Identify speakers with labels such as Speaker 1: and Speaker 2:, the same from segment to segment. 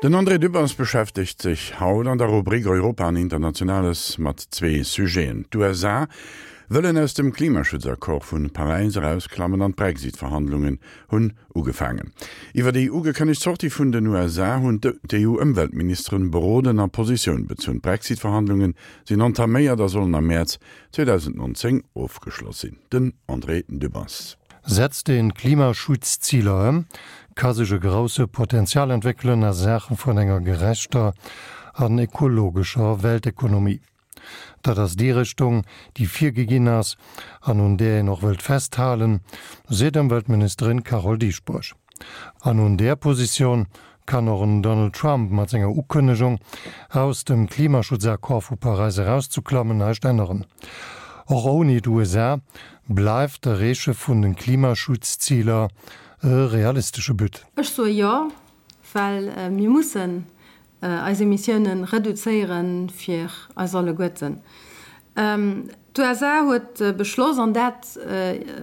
Speaker 1: Den André Dübbers beschäftegt sech haut an der Rubrik Europa an Internationales mat zwee Sujeten, D'USA wëllen aus dem Klimaschutzaccord vu Paräis erausklammen an d'Brexit-Verhandlungen hunn ugefaangen. Iwwer déi ugekënnegt Sortie vun den USA hunn d'EU-Ëmweltministeren beroden a Positioun bezunn. D'Brexit-Verhandlunge sinn entaméiert a sollen am Mäerz 2019 ofgeschloss sinn. Den André Dübbers.
Speaker 2: Setzt een d'Klimaschutzziler ëm, ka sech e grousse Potenzial entwéckelen a Saache vun enger gerechter an ekologescher Weltekonomie. Dat ass déi Richtung, déi virgeginn ass an un där een och wëllt festhalen, seet Ëmweltministerin Carole Dieschbourg. An un där Positioun kann och en Donald Trump mat senger Ukënnegung, aus dem Klimaschutzaccord vu Paräis erauszeklammen, näischt änneren. Och ouni d'USA bleift d'Erreeche vun de Klimaschutzziler e realistesche But.
Speaker 3: Ech soe jo, well mir mussen eis Emissiounen reduzéieren fir eis alleguerten. D'USA huet beschloss, an dat,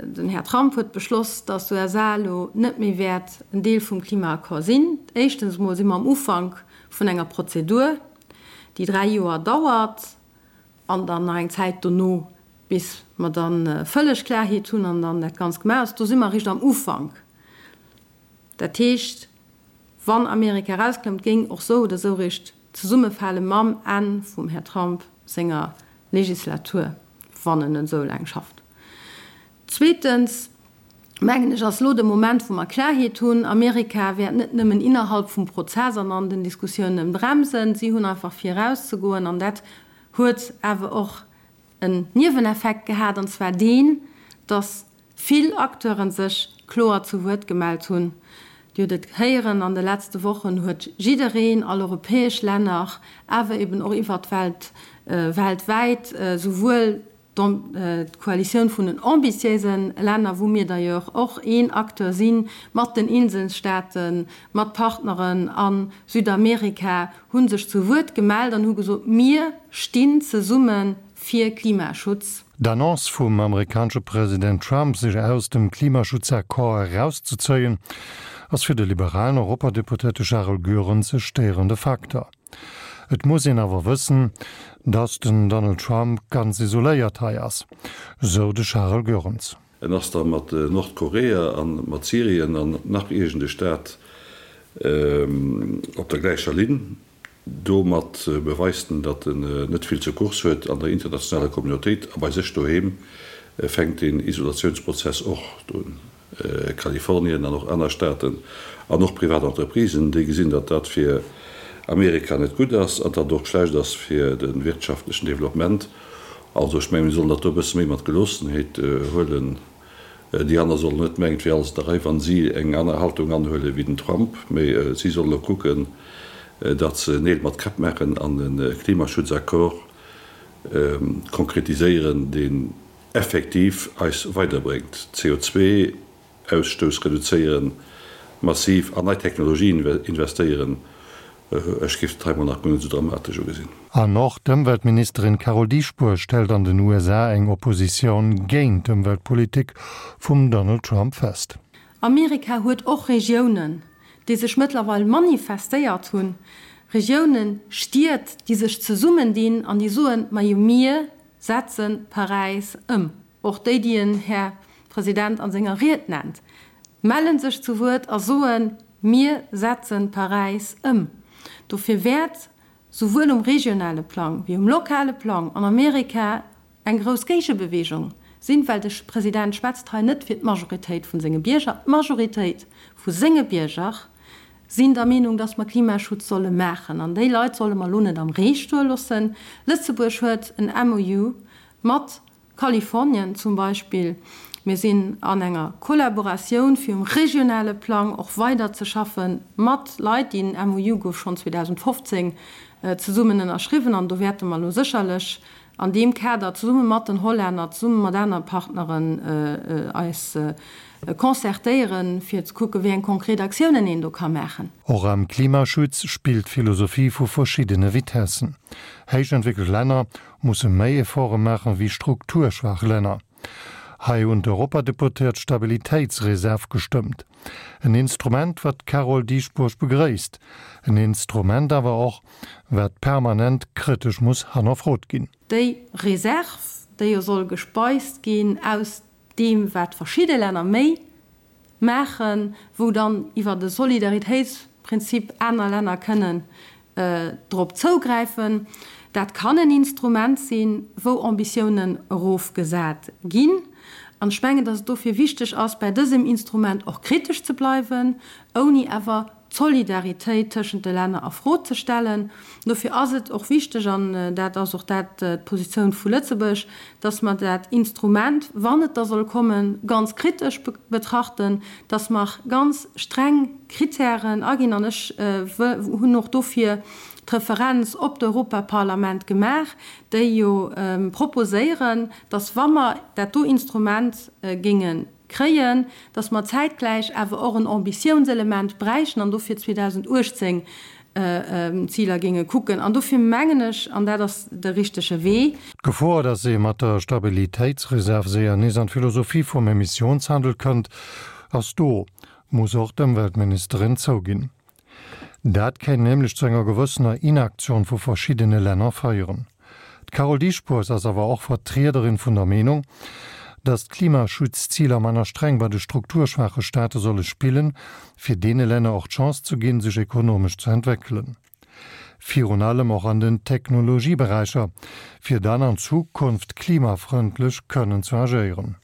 Speaker 3: den Här Trump huet beschloss, datt d'USA elo net méi wäert en Deel vum Klimaaccord sinn. Éischtens emol si mer am Ufank vun enger Prozedur, déi 3 Joer dauert an dann nach eng Zäit dono, bis mer da vëlleg Klarheet hunn an dann dat Ganzt gemaach ass. Do si mer eréischt am Ufank. Dat heescht, wann Amerika erausklëmmt, géing och sou oder sou eréischt zesummefale mam Enn vum Här Trump senger Legislatur, wann en esou laang schafft. Zweetens, mengen ech, ass elo de Moment, wou mer Klarheet hunn. Amerika wäert net nëmmen innerhalb vum Prozess an an den Diskussiounen bremsen, si hunn einfach fir erauszegoen an dat huet awer och en Nieweneffekt gehat, an zwar deen, dass vill Acteure sech kloer zu Wuert gemellt hunn. Dir hutt et héieren, an de letzte Wochen huet jiddereen, all europäesch Länner, awer eben och iwwert d'Welt, weltwäit, souwuel d'Koalitioun vun den ambitiéise Länner, wou mir d'ailleurs och een Acteur sinn, mat den Inselstaaten, mat Partneren a Südamerika, hu sech zu Wuert gemellt an hu gesot, Mir stinn zesumme fir Klimaschutz.
Speaker 2: D'Annonce vum amerikanesche President Trump, sech aus dem Klimaschutzaccord erauszezéien, ass fir de liberalen Europadeputéierte Charel Goerens e stéierende Facteur. Et muss een awer wëssen, datt den Donald Trump ganz isoléiert hei ass, sou de Charel Goerens.
Speaker 4: En ass da mat Nordkorea a mat Syrien an nach iergend e Staat op der gläicher Linn. Domat beweist en, datt en net vill zur Course huet an der internationaler Communautéit a bei sech doheem fänkt deen Isolatiounsprozess och do un. Kalifornien an och aner Staaten an och privat Entreprisen, déi gesinn, datt dat fir Amerika net gutt ass an datt et och schlecht ass fir de wirtschaftlechen Developpement. Also ech mengen, mir sollen dat do e bësse méi mat Geloossenheet huelen. Déi aner sollen net mengen, et wier alles an der Rei, wa si eng aner Haltung anhuele wéi den Trump, mee si sollen elo kucken, datt se Neel mat Käpp maachen an e Klimaschutzaccord konkretiséieren, deen effektiv eis weiderbréngt, CO2-Ausstouss reduzéieren, massiv an nei Technologien investéieren. Ech géif dat hei mol nach guer net esou dramatesch ugesinn.
Speaker 2: An och d'Ëmweltministerin Carole Dieschbourg stellt an den USA eng Oppositioun géint d'Ëmweltpolitik vum Donald Trump fest.
Speaker 3: Amerika huet och Regiounen, déi sech mëttlerweil manifestéiert hunn, Regiounen, Stied, déi sech zesummendinn an déi soen, Majo mir Setze Paräis ëm. Och déi, déi en Här President a senger Ried nennt, melle sech zu Wuert a soen, Mir setze Paräis ëm. Dofir wäert souwuel um regionale Plang wéi um lokale Plang an Amerika eng grouss Géigebewegung sinn, well de President schwätzt hei net fir d'Majoritéit vu senge Bierger. D'Majoritéit vu senge Bierger sinn der Meenung, dass mer Klimaschutz solle maachen an déi Leit solle mer elo net am Ree stoe loossen. Lëtzebuerg huet en MOU mat Kalifornien zum Beispill. Mir sinn an enger Kollaboratioun, fir um regionale Plang och weider ze schaffe mat Leit. Deen MOU gouf schonn 2015 zesummen ënnerschriwwen an do wäerte mer elo sécherlech an deem Kader zesumme mat den Hollänner, zesumme mat aner Partneren eis concertéieren, fir ze kucken, wéi eng konkret Aktiounen een do ka maachen.
Speaker 2: Och am Klimaschutz spillt d'Philosophie vu verschiddene Vitessen. Héich entwéckelt Länner musse méi Efforte maachen wéi strukturschwaach Länner. Hei hunn d'Europadeputéiert d'Stabilitéitsreserv gestëmmt. En Instrument, wat d'Carole Dieschbourg begréisst. En Instrument awer och, wat permanent kritesch muss hannerfrot ginn.
Speaker 3: Déi Reserv, déi jo soll gespeist ginn aus deem, wat verschidde Länner méi maachen, wou dann iwwert e Solidaritéitsprinzip aner Länner kënnen drop zougräifen. Dat kann en Instrument sinn, wou Ambitiounen erofgesat ginn. An ech mengen, dass et dofir wichteg ass, bäi dësem Instrument och kritesch ze bleiwen, ouni awer d'Solidaritéit tëschent de Länner a Fro ze stellen. Dofir ass et och wichteg, an dat ass och dat d'Positioun vu Lëtzebuerg, dass mer dat Instrument, wann et da soll kommen, ganz kritesch betrachten, dass mer ganz streng Kritären aginn. An ech hunn och dofir d'Referenz op d'Europaparlament gemaach, déi jo proposéieren, dass, wa mer dat do Instrument géinge kréien, dass mer zäitgläich awer och en Ambitiounselement bräichten an dofir 2018 d'Ziler géinge kucken. An dofir mengen ech, an dat ass de richtege Wee.
Speaker 2: D'Gefor, dass ee mat der Stabilitéitsreserv séier nees an d'Philosophie vum Emissiounshandel kënnt, ass do, muss och d'Ëmweltministerin zouginn. Dat kéint nämlech zu enger gewëssener Inaktioun vu verschiddene Länner féieren. D'Carole Dieschbourg ass awer och Vertriederin vun der Meenung, datt d'Klimaschutzziler manner streng bei de strukturschwaache Staate solle spillen, fir deene Länner och d'Chance ze ginn, sech ekonomesch ze entwéckelen. Virun allem och an den Technologieberäicher, fir dann an Zukunft klimafrëndlech kënnen ze agéieren.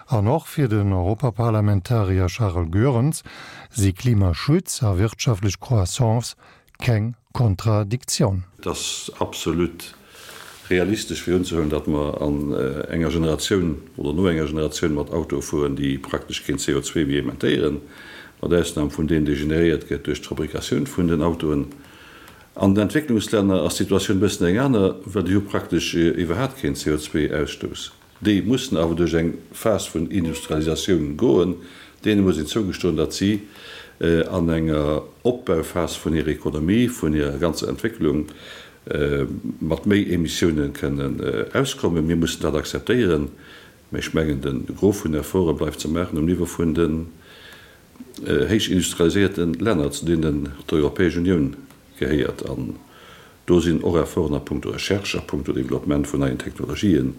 Speaker 2: An och fir den Europaparlamentarier Charles Goerens si Klimaschutz a wirtschaftlech Croissance keng Kontradiktioun.
Speaker 4: Et ass absolut realistesch fir unzehuelen, datt mer an enger Generatioun oder no enger Generatioun mat Autoe fueren, déi praktesch keen CO2 méi emettéieren, mat Ausnam vun deem, dee generéiert gëtt duerch d'Fabrikatioun vun den Autoen. An den Entwécklungslänner ass d'Situatioun e bëssen eng aner, well déi hu praktesch iwwerhaapt keen CO2-Ausstouss. Déi mussen awer duerch eng Phas vun Industrialisatioun goen. Deene muss een zougestoen, datt si an enger Opbauphas vun hirer Ekonomie, vun hirer ganzer Entwécklung mat méi Emissioune kënnen auskommen. Mir mussen dat akzeptéieren. Mä ech mengen, de Gros vun Efforte bleift ze maachen um Niveau vun den héich industrialiséierte Länner, zu deenen d'Europäesch Unioun gehéiert. An do sinn och Efforten a puncto Recherche, a puncto Développement vun neien Technologien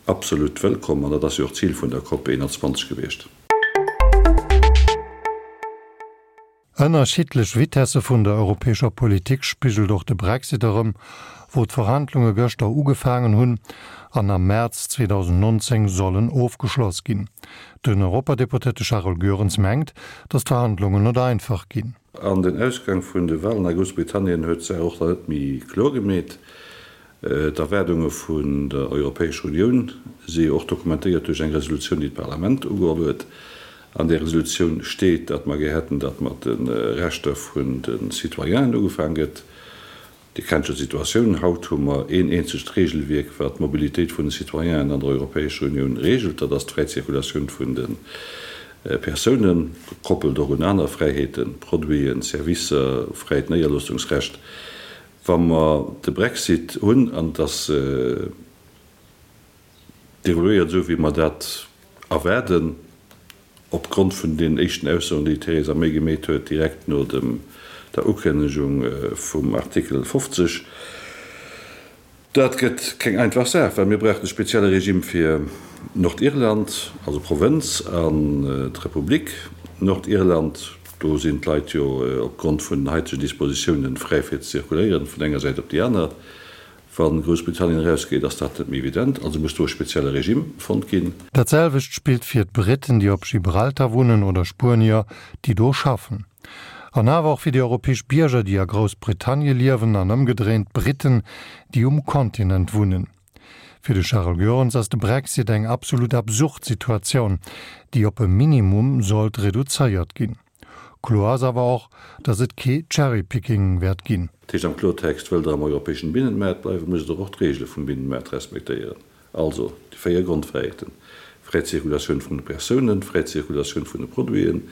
Speaker 4: absolut wëllkomm. An dat ass jo och d'Zil vun der COP 21 gewiescht.
Speaker 2: Ënnerschiddlech Vitesse vun der europäescher Politik spigelt och de Brexit erëm, wou d'Verhandlunge gëschter ugefaangen hunn an am Mäerz 2019 sollen ofgeschloss ginn. Den Europadeputéierte Charles Goerens mengt, datt d'Verhandlungen net einfach ginn.
Speaker 4: An den Ausgang vun de Walen a Groussbritannien huet d'Saach och nach net méi kloer gemeet. D'Erwaardunge vun der Europäescher Unioun si jo och dokumentéiert duerch eng Resolutioun, déi d'Parlament ugeholl huet. An där Resolutioun steet, datt mer gär hätten, datt mat de Rechter vun de Citoyenen ugefaang gëtt. Dir kennt jo d'Situatioun. Haut hu mer een eenzegt Regelwierk, wat d'Mobilitéit vun de Citoyenen an der Europäescher Unioun regelt. Dat ass d'fräi Zirkulatioun vun de Persounen, gekoppelt och un aner Fräiheeten, Produiten, Servicer, fräit Néierloossungsrecht. Wa mer de Brexit hunn, an et ass deroléiert esou, wéi mer dat erwaarden, Opgrond vun deenen éischten Aussoen, déi d'Theresa May gemeet huet, direkt no dem der Ukënnegung vum Artikel 50. Dat gëtt keng einfach Saach, well mir brauchen e spezielle Regime fir Nordirland, also Provënz, an d'Republik Nordirland. Do sinn d'Leit jo opgrond vun den haitegen Dispositiounen fräi fir ze zirkuléieren, vun enger Säit op déi aner. Wa Groussbritannien erausgeet, ass dat net méi evident, also muss do e spezielle Regime fonnt ginn.
Speaker 2: Dat selwecht spillt fir d'Britten, déi op Gibraltar wunnen, oder Spuenier, déi do schaffen. An awer och fir déi europäesch Bierger, déi a Groussbritannie liewen, an ëmgedréint d'Britten, déi um Kontinent wunnen. Fir de Charles Goerens ass de Brexit eng absolut absurd Situatioun, déi op e Minimum sollt reduzéiert ginn. Kloer ass awer och, datt et kee Cherry-Picking wäert ginn.
Speaker 4: Dat heescht am Kloertext, Wëllt Der am europäeschen Binnenmaart bleiwen, musst Der och d'Reegele vum Binnenmaart respektéieren, also déi 4 Grondfräiheeten, fräi Zirkulatioun vun de Persounen, fräi Zirkulatioun vun de Produiten,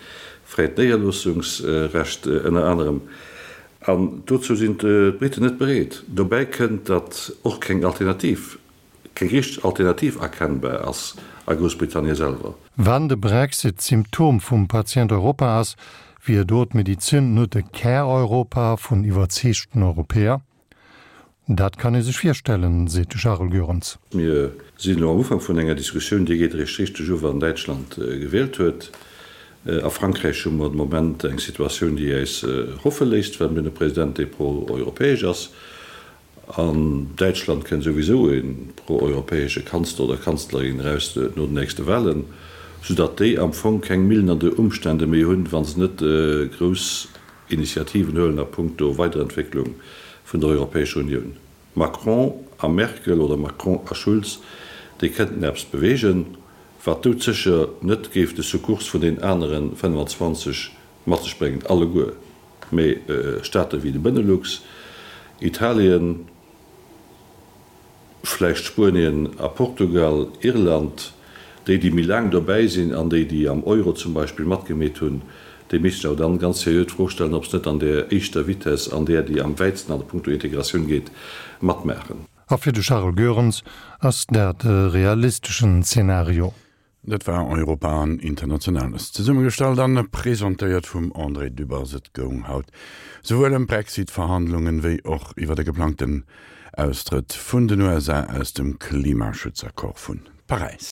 Speaker 4: fräit Néierloossungsrecht ënner anerem. An dozou sinn d'Briten net bereet. Dobäi kënnt, datt och keng Alternativ Keng richteg Alternativ erkennbar ass. A Groussbritannien selwer.
Speaker 2: Wann de Brexit d'Symptom vum Patient Europa ass, wier do d'Medizin net e Kär-Europa vun iwwerzeegten Europäer? Dat kann ee sech virstellen, seet de Charles Goerens.
Speaker 4: Mir sinn elo am Ufank vun enger Diskussioun, déi geet eréischt richteg u wann Däitschland gewielt huet. A Frankräich hu mer de Moment eng Situatioun, déi äis hoffe léisst, well mir hunn e President, dee pro-europäesch ass. An Däitschland kënnt souwisou e pro-europäesche Kanzler oder Kanzlerin eraus no den nächste Wahlen, soudatt déi am Fong keng milnernd Umstände méi hunn, wa se net grouss Initiativen huelen a punkto Weiderentwécklung vun der Europäescher Unioun. Macron a Merkel oder Macron a Schulz, déi kënnten eppes beweegen, wat doudsécher net géif de Sukkurs vun den anere 25 mat sech bréngen, alleguer. Mee Staate wéi de Benelux, Italien, vläicht Spuenien a Portugal, Irland, déi, déi méi laang dobäi sinn an déi, déi am Euro zum Beispill matgemeet hunn, déi missten sech awer dann ganz seriö d'Fro stellen, ob se net an där éischter Vitesse, an där, déi am wäitsten an punkto Integratioun geet, matmaachen.
Speaker 2: A fir de Charles Goerens ass dat e realisteschen Zeenario.
Speaker 1: Dat war Europa an Internationales, zesummegestallt an presentéiert vum André Dübbers. Et goung haut souwuel ëm d'Brexit-Verhandlungen, wéi och iwwer e geplangten Austrëtt vun den USA aus dem Klimaschutzaccord vun Paräis.